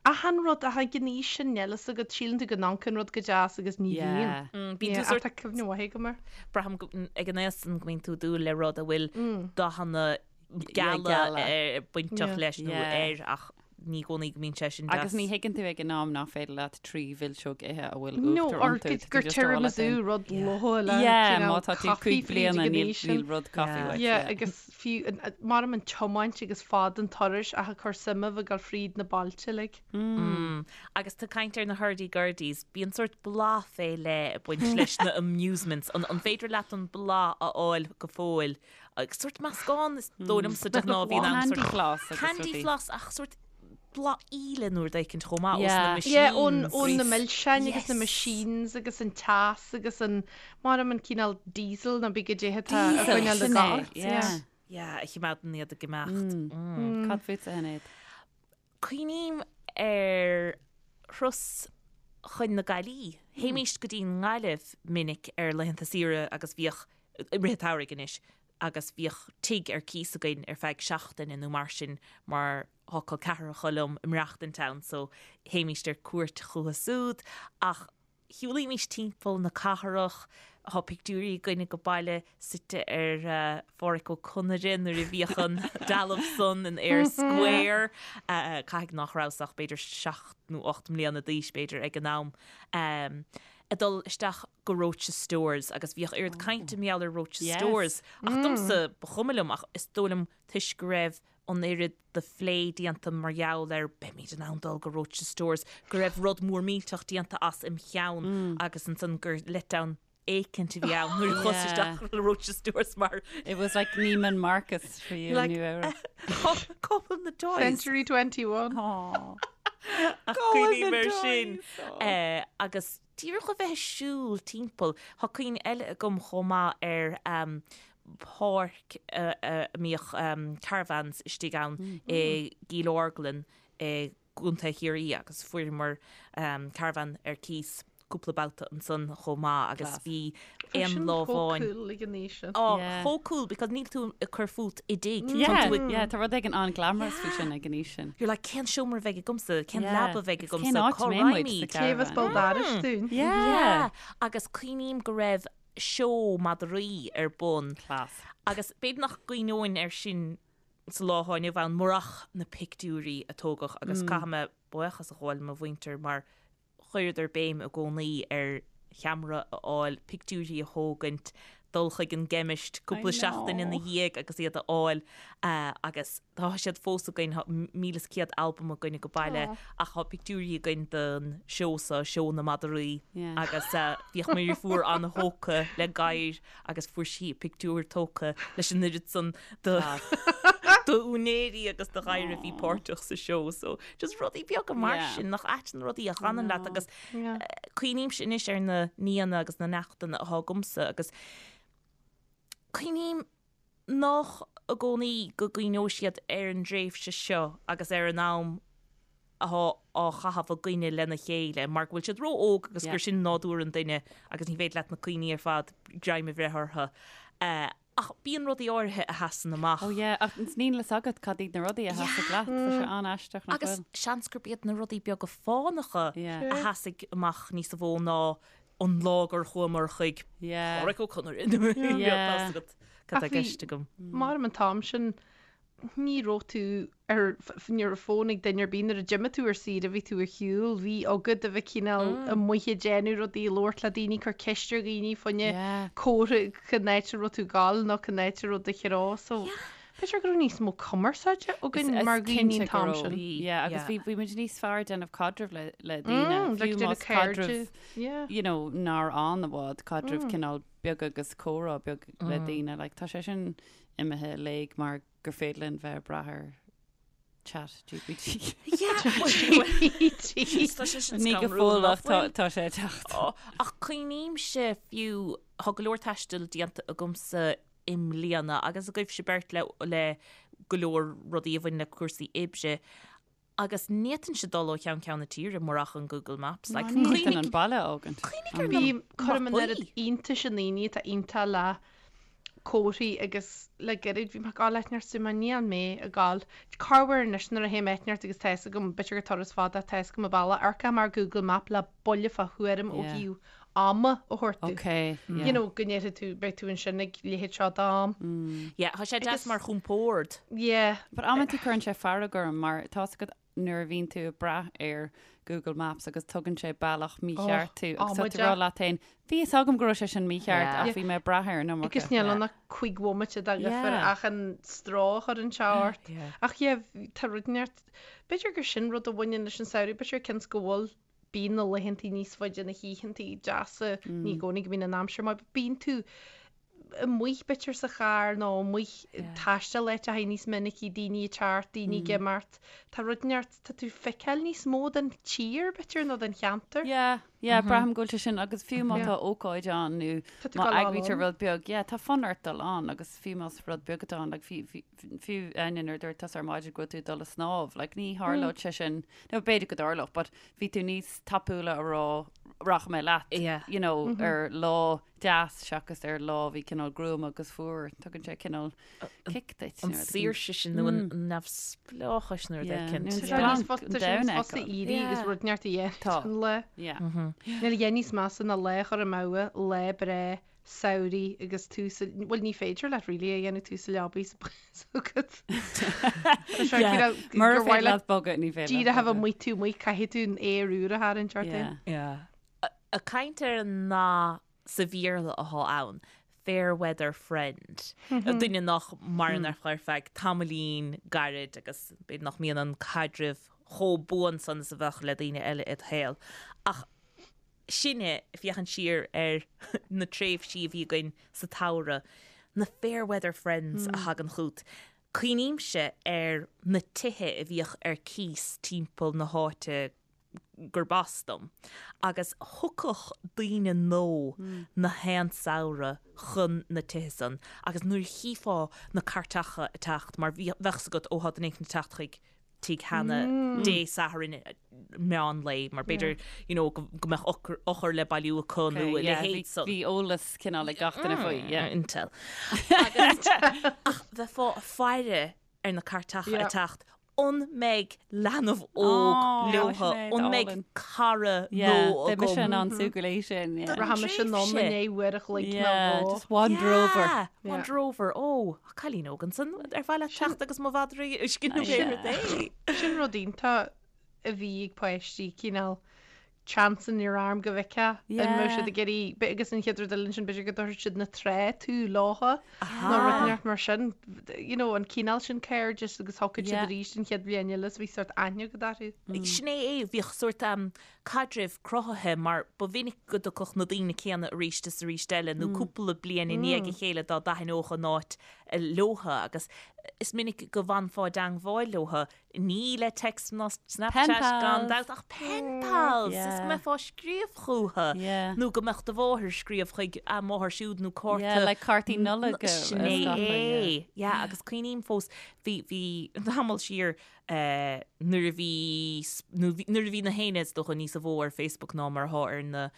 Achan rud ach ag an aois sin níl fhios agat síleann tú go n-amharcann rud go deas agus ní bhíonn. Yeah. Bíonn Yeah, tú sort ach tá cuimhne mhaith agam air. braithim go- ag an aois san go mbíonn tú ag dúil le rud a bhfuil dathanna geala geala. bainteach Yeah. leis nó Yeah. air ach ní i gcónaí go mbíonn sé sin deas. Agus ní thuigeann tú ag an am nach féidir leat trí mhilseog ithe a bhfuil No, uachtar or iontu. gur Tá tú gur just á leat tiramisu féin. rud lofa le Yeah, cineál má tá tú coffee cúig fríd bliana ag an níl aois sin. níl rud coffee Yeah. uait. Yeah, Yeah. agus fiú an- mar an tiomáint agus fad an turais ach ag cur suime bheith ag dul fríd na bailte like. Agus tú ag caint ar na hurdy gurdies, bíonn sórt bláth fé leith ag baint leis na amusements. An, an féidir leat an bláth a fháil go fóill? Agus sórt meascán is dóigh liomsa de ghnáth bhíonn ann Candy sórt floss agus candy rudaí. floss ach sórt bláth íle nó rud éicint chomh maith ós na Yeah. machines. Yeah, ón ón na Yes. milseáin agus na Yes. machines agus an teas agus an mar an cineál diesel nó bí go dtithe tá a Diesel, choinneáil sin le é, gach. yeah. Yeah, a chimeádann iad ag imeacht. Mm. Cad fútsa a Shinéad? Cuimhním ar thuras chun na Gaillimhe. Théimíst go dtí an nGaillimh minic ar laethanta saoire agus bhíodh, i rith an tsamhraidh anois, agus bhíodh tigh ar cíos againn ar feadh seachtaine nó mar sin mar thá col ceathracha liom ag maireachtaint ann so théimíst ar cuairt chucu súd ach shiúlaímís timpeall na cathrach, thá pictiúirí againn age baile suite ar Phádhraic Ó Conaire nuair a bhíodh an dealbh san in Eyre Square, caithfidh nach rabhas ach b'fhéidir seacht nó 8 mbliana d'aois b'fhéidir ag an am, ag dul isteach go Roches Stores agus bhíodh oiread cainte mar gheall ar Roches Yes. Stores ach domsa ba chuma liom ach is dóigh liom toisc go raibh an oiread de phlé déanta mar gheall ar beimid in ann dul go Roches Stores go raibh rud mór millteach déanta as im cheann agus ansan gur letdown éicint a bhí ann nuair a chuas Yeah. isteach le Roches Stores mar It was like Neiman Marcus for you Like- in New Era. cá bhfuil na toys Century 21. Aw. Ach Cá bhfuil cuimhním na ar sin. toys? Eh, agus díreach a bheith ag siúl timpeall, tá cuimhne eile agam chomh maith ar um, páirc a a mbíodh um, caravans istigh ann i gCill Orglan i gContae Chiarraí agus fuaireamar um, caravan ar cíos cúpla babhta ansan chomh maith agus Class. bhí Bhí aon sin lá chomh amháin cool ag an aois sin. Oh, Yeah. chomh cool because níl tú ag cur fút i dtigh. Tá Yeah, tú ag- yeah, tá rud éigin an-glamorous faoi sin ag an aois sin. You're like, cén seomra a bheidh agamsa, cén Yeah. leaba a bheidh Agus agamsa, cén áit cá a mbeidh muid raghaimid? sa Cé bheas caravan? ball dorais dúinn? Yeah. Yeah. Agus cuimhním go raibh seó madraí ar bun. Class. Agus b'fhéidir nach gcuimhneoinn air sin sa lá atá inniu ann murach na pictiúirí a tógadh agus caithfidh mé buíochas a ghabháil le mo mhuintir mar chuireadar béim i gcónaí ar cheamara a fháil, pictiúirí a thógaint, dul chuig an gceimist cúpla seachtain ina dhiaidh agus iad a fháil agus tá siad fós againn, tá 1,100 albam againn age baile ach tá pictiúirí againn den seó seo, seó na madraí agus bhíodh mo dheirfiúr an-thógtha le gadhair agus fuair sí a pictiúr tógtha leis an oiread san de d'úinéirí agus de ghadhair a bhí páirteach sa seó. So just rudaí beaga mar sin nach ait na rudaí a fhanann leat agus cuimhnímse anois ar na nianna agus na neachtanna atá agamsa agus cuimhním nach i gcónaí go gcuimhneoidh siad ar an dtréimhse seo agus ar an am atá á chaitheamh againne lena chéile mar go bhfuil siad ró-óg agus gur sin nádúr an duine agus ní féidir leat na cuimhní ar fad greim a bhreith orthu. Ach bíonn rudaí áirithe a sheasann amach. Oh yeah, ach níl a fhios agat cad iad na rudaí a sheasfaidh leat, tá sé an-aisteach nach Agus bhfuil? seans gurb iad na rudaí beaga fánacha a sheasfaidh amach níos mó ná an lá gur chuamar chuig Pádraic Ó Conaire. Tá a fhios agat cad tá i gceist agam. Mar an t-am sin ní raibh tú ar, ní raibh fón ag duine ar bith nuair a d'imigh tú ar saoire, bhí tú ar shiúl, bhí agat a bheith cineál amuigh ag déanamh rudaí, ag labhairt le daoine, cur ceist ar dhaoine fá choinne comhartha cén áit a raibh tú ag gabháil nó cén áit a raibh do threo so b'fhéidir go raibh níos mó cumarsáide againn mar dhaoine an t-am sin. Yeah, agus bhí bhí muid níos fearr ag déanamh caidrimh le le daoine, fiú más caidreamh you know nár fhan i bhfad, caidreamh cineál beag agus comhrá beag le daoine, like tá sé sin imithe i léig mar gur féidir linn bheith ag brath ar. Chat GPT. Tá sé sin Ní go scanrúil, fóill nach ach tá bhfuil? tá sé ag teacht. Ó, Ach cuimhnímse fiú, tá go leor taistil déanta agamsa i mbliana agus agaibhse beirt le le go leor rudaí a bhain le cúrsaí oibre agus ní fhéadfainnse dul ó cheann ceann na tíre murach an Google Maps. Like, Ní cuimhnigh fhéadfainn an baile a fhágaint. cuimhnigh ar na Bím, cuirim an mapaí. oiread iontais i ndaoine atá iontach le comharthaí agus le gairid bhí mé ag gabháil áit inteacht so mé níl mé ag gabháil corruair anois nuair a théim áit inteacht agus tá fhios agam b'fhéidir gur turas fada tá fhios agam an bealach amharcaim ar Google Map le buille fá thuairim ó Yeah. thaobh ama a thabhairt domh. Ok, yeah. You know go ndéarfaidh tú beidh tú ansin ag leithéid seo d'am. Yeah, tá sé deas Agus- mar chompord. Yeah. But amantaí cuireann sé fearg orm mar tá's agat nuair a bhíonn tú ag brath ar Google Maps agus tugann sé bealach mícheart tú agus tá tú ag rá leat féin, bhí fhios agam go raibh sé sin mícheart ach bhí mé ag brath air an iomarca. Agus níl ann ach 5 bhomaite de dhifear ach an stró a chuireann sé ort. Ach yeah, tá rud inteacht, b'fhéidir gur sin rud a bhaineann leis an samhradh, b'fhéidir cionn is go bhfuil, bíonn na laethantaí níos faide, na hoícheantaí deasa, ní i gcónaí go mbíonn an aimsir maith, but bíonn tú amuigh b'fhéidir sa charr nó amuigh ag taisteal áiteacha níos minicí, daoine ag teacht, daoine ag imeacht. Tá rud inteacht, tá tú ag feiceáil níos mó den tír b'fhéidir nó den cheantar. Yeah, yeah, braithim go bhfuil sé sin agus fiú má tá ócáid ann nó Tá tú má ag dul eagraítear ann. rud beag, yeah, tá fonn ort dul ann agus fiú más rud beag atá ann, like fiú, fiú, fiú Áine nuair a dúirt tusa ar maidin go raibh tú ag dul ag snámh, like ní tharlódh sé sin, nó b'fhéidir go dtarlódh, but bhí tú níos tapúla a rá rachaidh mé leat, Yeah. you know, ar lá deas seachas ar lá a bhí cineál gruama agus fuar. Tugann sé cineál kick duit. An saoirse sin nó an neamhspleáchas nó rud éicint. Tá sé níos fusa tá sé níos fusa éirí agus rud inteacht a dhéanamh Tá. an lá. Yeah. Níl a dhath níos measa ná lá a chur amú, lá breá samhraidh agus tú sa, bhuel ní féidir leat really a dhéanamh tú sa leabaidh sa agat. Tá sé Yeah. cineál Mura gur mhaith féidir leat leat bogadh, ní féidir leat díreach a bheith bogadh. amuigh tú amuigh caithfidh tú an aer úr a tharraingt ort Yeah. féin. Yeah. Ag caint ar an nath sa Bhéarla athá ann, fair weather friend, duine nach maireann ar feadh tamaillín gairid agus b'fhéidir nach mbíonn an caidreamh chomh buan san is a bheadh le daoine eile id shaol. Ach sinne ag féachaint siar ar na tréimhsí a bhí againn sa tsamhradh, na fair weather friends a thagann chugat. Cuimhnímse ar na tithe a bhíodh ar cíos timpeall na háite gurb as dom, agus thiocfadh daoine nua na haon samhradh chun na tithe san agus nuair a chífeá na cairteacha ag teacht, mar bheadh 's agat, ó thá duine éicint ag teacht chuig tigh Hannah Dé Sathairn meán lae, mar b'fhéidir, you know, go mbeadh eochair le bailiú acu nó a leithéid san. Bhí eolas cineál ag gach duine faoi, yeah. Intel. Agus, ach bheifeá ag faire ar na cairteacha ag teacht, an mbeidh leanbh óg leotha, an mbeidh cara nua agam? Beidh mise in ann súgradh léi sin, yeah. Rachaidh mise anonn i ndiaidh uair a chloig nó dhó. Just wander over. Yeah, wander over. Ó, cailín óg ansan, ar mhaith leat teacht agus mo mhadra a scinneadh ar rud é? Sin rud iontach a bhí ag páistí, cineál chance in your arm go bhfeicfeá an mbeadh siad ag iarraidh, agus an chéad rud eile ansin b'fhéidir go dtabharfadh siad na trá tú leotha nó rud inteacht mar sin, you know, an cineál sin cairdis agus thiocfadh siad arís an chéad bhliain eile so bhí sórt aithne agat orthu. Sin é é, bhíodh sórt caidrimh cruthaithe mar ba mhinic go dtiocfadh na daoine céanna arís is arís eile nó cúpla bliain i ndiaidh a chéile dá dtaitneodh an áit leotha agus is minic go bhfanfá i dteangmháil leotha Ní le text ná Snapchat gan dabht ach pen pals! Is go mbeifeá ag scríobh chúthu nó go mbeadh do mháthair ag scríobh chuig a máthair siúd nó cárta. Yeah, like cártaí Nollag a Sin é é. Yeah, agus cuimhním fós, bhí, bhí tamall siar nuair a bhí, nuair a bhí na héinne is dócha níosa mhó ar Facebook ná mar atá ar na,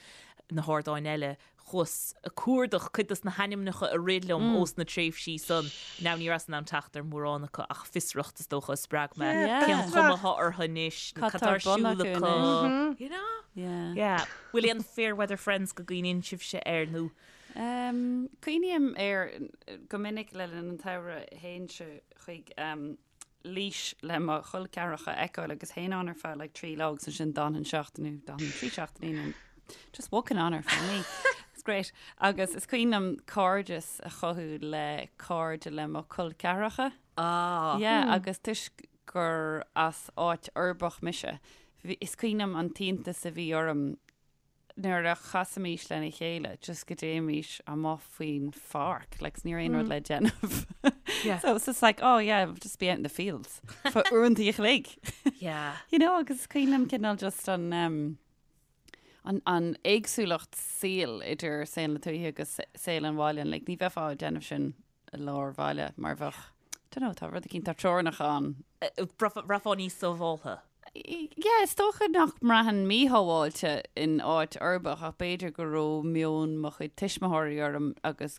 na hardáin eile, Chuas ag cuardach cuid dos na hainmneacha a rith liom ós na tréimhsí san. Now ní rabhas in ann teacht ar mhórán acu ach fiosracht is dócha a spreag mé. Cén chuma atá orthu anois nó Cad cad tá tá ar ar bun siúl acu acu? anois? You know? Yeah. Yeah. Bhfuil aon fair weather friends go gcuimhníonn sibhse air nó? Cuimhním air go minic le linn an tsamhraidh théinnse chuig Laois le mo chol ceathracha a fheiceáil agus théinn ann ar feadh like 3 lá agus ansin d'fhanfainn seachtain nó d'fhanfainn 3 seachtainí nó just walking on ar feadh mí. It's great. Agus is cuimhin liom cairdeas a chothú le cairde le mo chol ceathracha. Ah. Yeah, agus toisc gur as áit uirbeach mise, is cuimhin liom an t-iontas a bhí orm nuair a chasaimis lena chéile just go dtéimis amuigh faoin pháirc, like 's ní raibh aon rud le déanamh. Yeah. So it's just like, oh yeah, just be out in the fields for uaireanta a chloig. Yeah. You know, agus is cuimhin liom cineál just an, um, an, an éagsúlacht saoil idir saol na tuaithe agus saol an bhaile. Like, ní bheifeá ag déanamh sin i lár bhaile mar bheadh, don't know, tá rud eicínt, tá teorainneacha ann. Bhraithfeá níos sábháltha. Yeah, is dócha nach mbraithfinn míshábháilte in áit uirbeach ach b'fhéidir go raibh meon mo chuid tuismitheoirí orm agus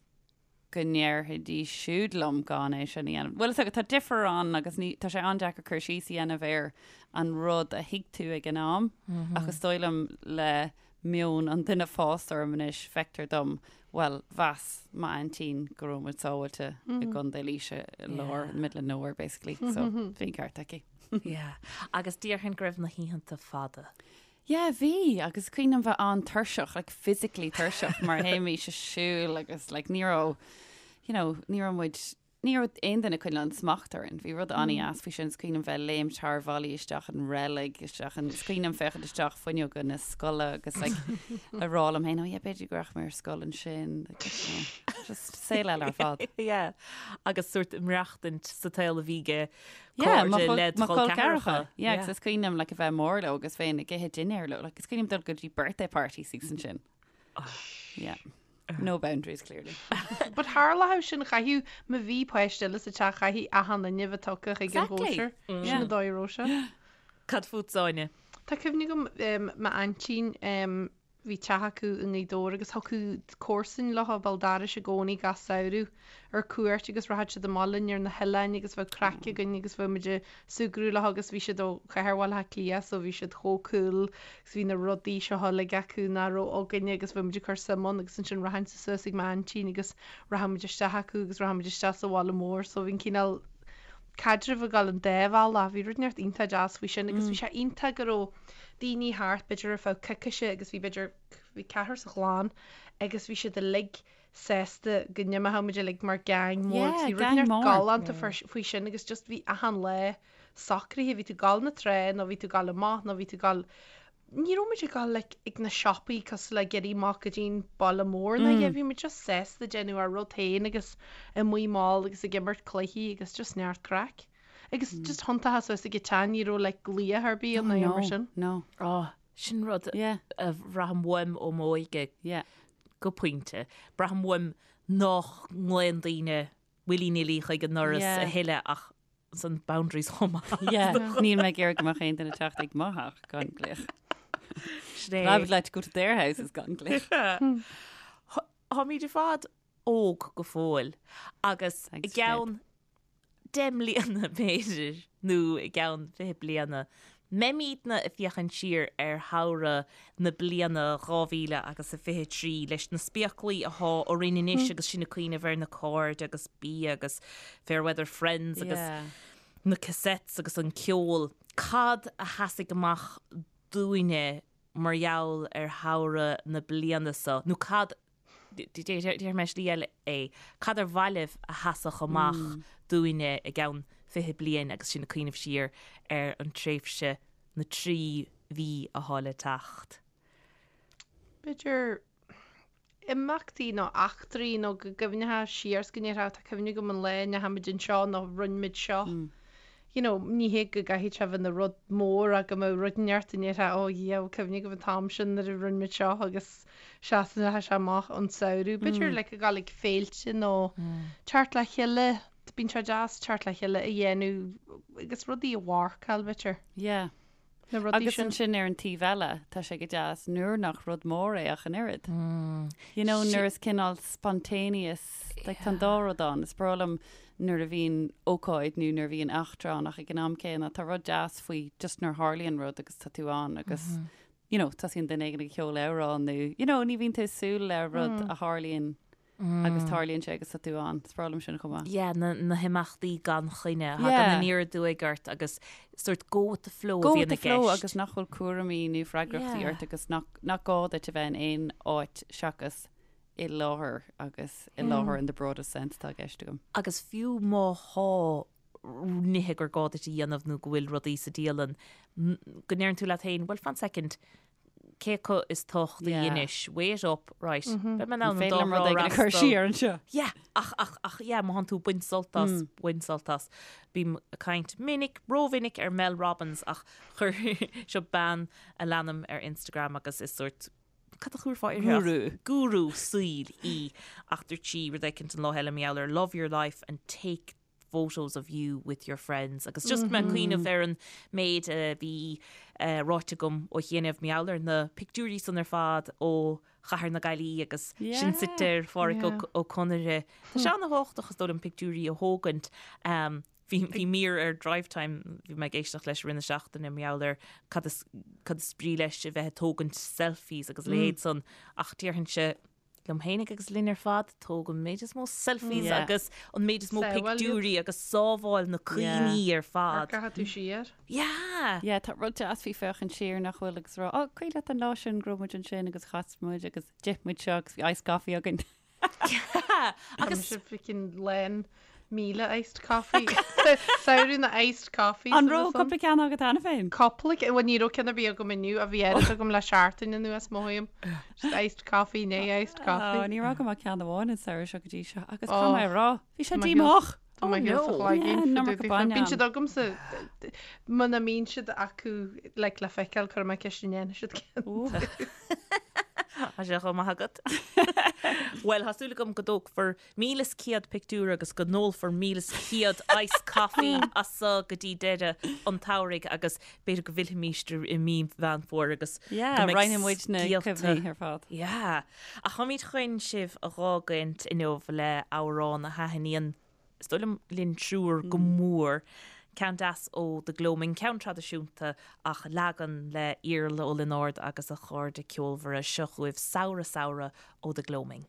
go ndéarfaidís siúd liom gan é sin a dhéanamh. Bhuel, is dócha, tá difear ann agus ní, tá sé an-deacair cur síos a dhéanamh ar an rud a thuig tú ag an am ach is dóigh liom le meon an duine fásta orm anois, feictear dom, bhuel, mheas m'aintín go raibh muid sábháilte i gContae Laoise i lár, in the middle of nowhere basically, so bhí an ceart aici. Yeah. Agus déarfainn go raibh na hoícheanta fada. Yeah, bhí, agus is cuimhin liom bheith an-tuirseach, like physically tuirseach mar théimís ag siúl agus like ní raibh, you know, ní raibh muid, ní raibh aon duine ag coinneáil an smacht orainn. Bhí rud an-dheas faoi sin, is cuimhin liom bheith ag léimt thar bhallaí isteach an reilig, isteach an, is cuimhin liom féachaint isteach fuinneoga na scoile agus like a rá liom féin, oh yeah, b'fhéidir go rachaidh mé ar scoil ansin, like, you know, just saol eile ar fad. Yeah, agus sórt maireachtaint sa tsaol a bhí ag Yeah, mo cairde chol- led mo chol chol ceathracha. ceathracha. Yeah, agus is cuimhin liom like a bheith mór leo agus bheinn ag ithe dinnéar leo. Like, is cuimhin liom dul go dtí birthday parties agus ansin. Yeah. No boundaries, clearly. But tharlódh sin chaithfeadh má bhí páiste eile sa teach chaithfeadh achan duine bheith tugtha chuig an Exactly. gcóisir. Sin Yeah. an dóigh a raibh sé. Cad fút, Áine? Tá cuimhne agam um, m'aintín um, Bhí teach acu i nGaoth Dobhair agus thiocfadh comharsain leo béal dorais i gcónaí gach samhradh ar cuairt agus rachadh siad amach linn ar na hoileáin agus bheadh craic againn agus bheadh muid ag súgradh leo agus bhí siad ó chathair Bhaile Átha Cliath so bhí siad chomh cool agus bhí na rudaí seo uilig acu nach raibh againne agus bheadh muid ag cur suim ann agus ansin rachainnse suas ag m'aintín agus rachadh muid isteach acu agus rachadh muid isteach sa bhaile mór so bhí an cineál caidreamh ag dul an dá bhealach. Bhí rud inteacht iontach deas faoi sin agus bhí sé iontach go raibh daoine thart b'fhéidir ar feadh coicíse agus bhí b'fhéidir, bhí ceathrar sa chlann agus bhí siad uilig sásta go n-imeodh muid uilig mar gang mór agus Yeah, bhí rud gang inteacht mór. galánta faoi sin agus just bhí achan lá socraithe, bhí tú ag dul na trá nó bhí tú ag dul amach nó bhí tú ag dul Ní raibh muid ag dul like ag na siopaí cosúil le ag éirí amach go dtí'n baile mór ná yeah bhí muid just sásta déanamh ár rud féin agus amuigh mall agus ag imirt cluichí agus just neart craic. Agus just thiontófá suas ag an teach ní raibh like glaoch ar bith ann ná No, mar sin. no. Oh, sin rud Yeah. a bhraithim uaim ó m'óige Yeah. go pointe. Braithim uaim nach nglaonn daoine willy-nilly chuig an ndoras Yeah. a thuilleadh ach san boundaries chomh maith. Yeah, níl mé ag iarraidh go mbeadh aon duine ag teacht ag mo theach gan glaoch. Sin é. I would like to go to their houses gan glaoch. Táimid ar fad óg go fóill agus i Thanks, gceann 10 mbliana b'fhéidir nó i gceann 20 bliana mbeimidne ag féachaint siar ar shamhradh na bliana 2000 agus a 23 leis na spéaclaí athá orainn anois agus sinn ag cuimhneamh ar na cairde agus bia agus fair weather friends agus na cassettes agus an ceol. Cad a sheasfaidh amach dúinne mar gheall ar shamhradh na bliana seo nó cad Déarfaidh mé slí eile é. Cad ar mhaith libh a sheasfadh amach dúinne i gceann 20 bliain agus sinn ag cuimhneamh siar ar an tréimhse, na 3 mhí athá le teacht? B'fhéidir imeachtaí nó eachtraí nó go gcuimhneofá siar is go ndéarfá tá cuimhne agam an lá a ndeachaigh muid anseo nó rinne muid seo. You know, ní hé go gcaithfidh sé bheith ina rud mór ach go mbeadh rud inteacht a ndéarfá oh yeah, cuimhne agam an t-am sin nuair a rinne muid seo agus Seasann sé amach ón samhradh. B'fhéidir like ag dul ag féilte nó teacht le chéile, bíonn sé deas teacht le chéile a dhéanamh agus rudaí a mharcáil b'fhéidir. Yeah. Na rudaí Agus sin. ansin ar an taobh eile, tá sé go deas nuair nach rud mór é ach an oiread. You know, nuair is cineál spontaneous, like tá an dá rud ann. Is breá liom nuair a bhíonn ócáid nó nuair a bhíonn eachtra ann ach ag an am céanna tá rud deas faoi just nuair a tharlaíonn rud agus tá tú ann agus you know, tosaíonn duine éigin ag ceol amhrán nó, you know, ní bhíonn tú ag súil le rud a tharlaíonn agus tarlaíonn sé agus tá tú ann. Is breá liom sin chomh maith. Yeah, na, na himeachtaí gan choinne a thagann Yeah. aniar aduaidh ort agus sort go with the flow a Go bhíonn with the i flow gceist. agus nach bhfuil cúraimí nó freagrachtaí Yeah. ort agus nach, nach gá duit a bheith in aon áit seachas i láthair agus i láthair in the broadest sense atá i gceist agam. Agus fiú má thá nithe gur gá duit a dhéanamh nó go bhfuil rudaí sa dialann, go ndeireann tú leat féin, well fan second, cé acu is tábhachtaí Yeah. anois, weigh it up, right, beidh mé in ann an Féidir dá liom rud thrá éigin a chur fhreastal. siar anseo. Yeah, ach, ach, ach, yeah, má thánn tú ag baint sult as, bain sult as. Bím ag caint minic, rómhinic ar Mel Robbins ach chuir, seo bean a leanaim ar Instagram agus is sórt, cad a chuirfeá uirthi ach- Gúrú. Gúrú saoil í ach dúirt sí rud éicint an lá eile mar gheall ar love your life and take photos of you with your friends agus just mé ag cuimhneamh ar an méid a bhí ráite agam ó chianaibh mar gheall ar na pictiúirí san ar fad ó Chathair na Gaillimhe agus sinn suite ar Pháirc Ó Conaire. Tá sé ana-thábhachtach is dóigh liom pictiúirí a thógaint. Bhí bhí mír ar Drivetime, bhí mé ag éisteacht leis i rith na seachtaine mar gheall ar cad is cad is brí leis a bheith ag tógaint selfies agus a leithéid san ach déarfainnse liom fhéinig agus linn ar fad, tóg an méid is mó selfies Yeah. agus an méid is mó Sábháil iad. pictiúirí agus sábháil na cuimhní ar fad. Amharcfaidh tú siar. Yeah! Yeah, tá rud deas faoi féachaint siar nach bhfuil agus rá, oh, cuimhin leat an lá sin go raibh muid ansin agus chas muid agus d'ith muid seo agus bhí iced coffee againn. Yeah! Agus Agus freaking lán 1000 iced coffee. Samhradh na iced coffees. An raibh cúpla ceann agat cheana féin? Cúpla, bhuel ní raibh ceann ar bith agam inniu ach bhí oiread agam le seachtain anuas mothaím. Just iced coffee, né iced coffee. Ó, ní raibh agam ach ceann amháin an samhradh seo go dtí seo agus Oh. caithfidh mé a rá, bhí sé Tá mé díomách. Tá mé Oh, thíos sa no. chloigeann. Yeah, an iomarca bainne Bíonn ann. siad agamsa, muna mbíonn siad acu like, le feiceáil cuirfidh mé ceist an ndéanfaidh siad ceann. Tá sé chomh maith agat. Bhuel, tá súil agam go dtógfar 1,100 pictiúr agus go n-ólfar 1,100 iced coffee as seo go dtí deireadh an tsamhraidh agus b'fhéidir go bhfillfimís i mí Mheán Fómhair agus go Yeah, mbeidh roinnfidh muid na scéalta. cuimhní ar fad. Yeah. Ach táimid chun sibh a dh'fhágaint inniu le amhrán a thaitníonn, is dóigh liom, linn triúr go mór. Ceann deas ó The Gloaming, ceann traidisiúnta ach leagan le Iarla Ó Lionáird agus a chairde ceolmhara. Seo chugaibh Samhradh Samhradh ó The Gloaming.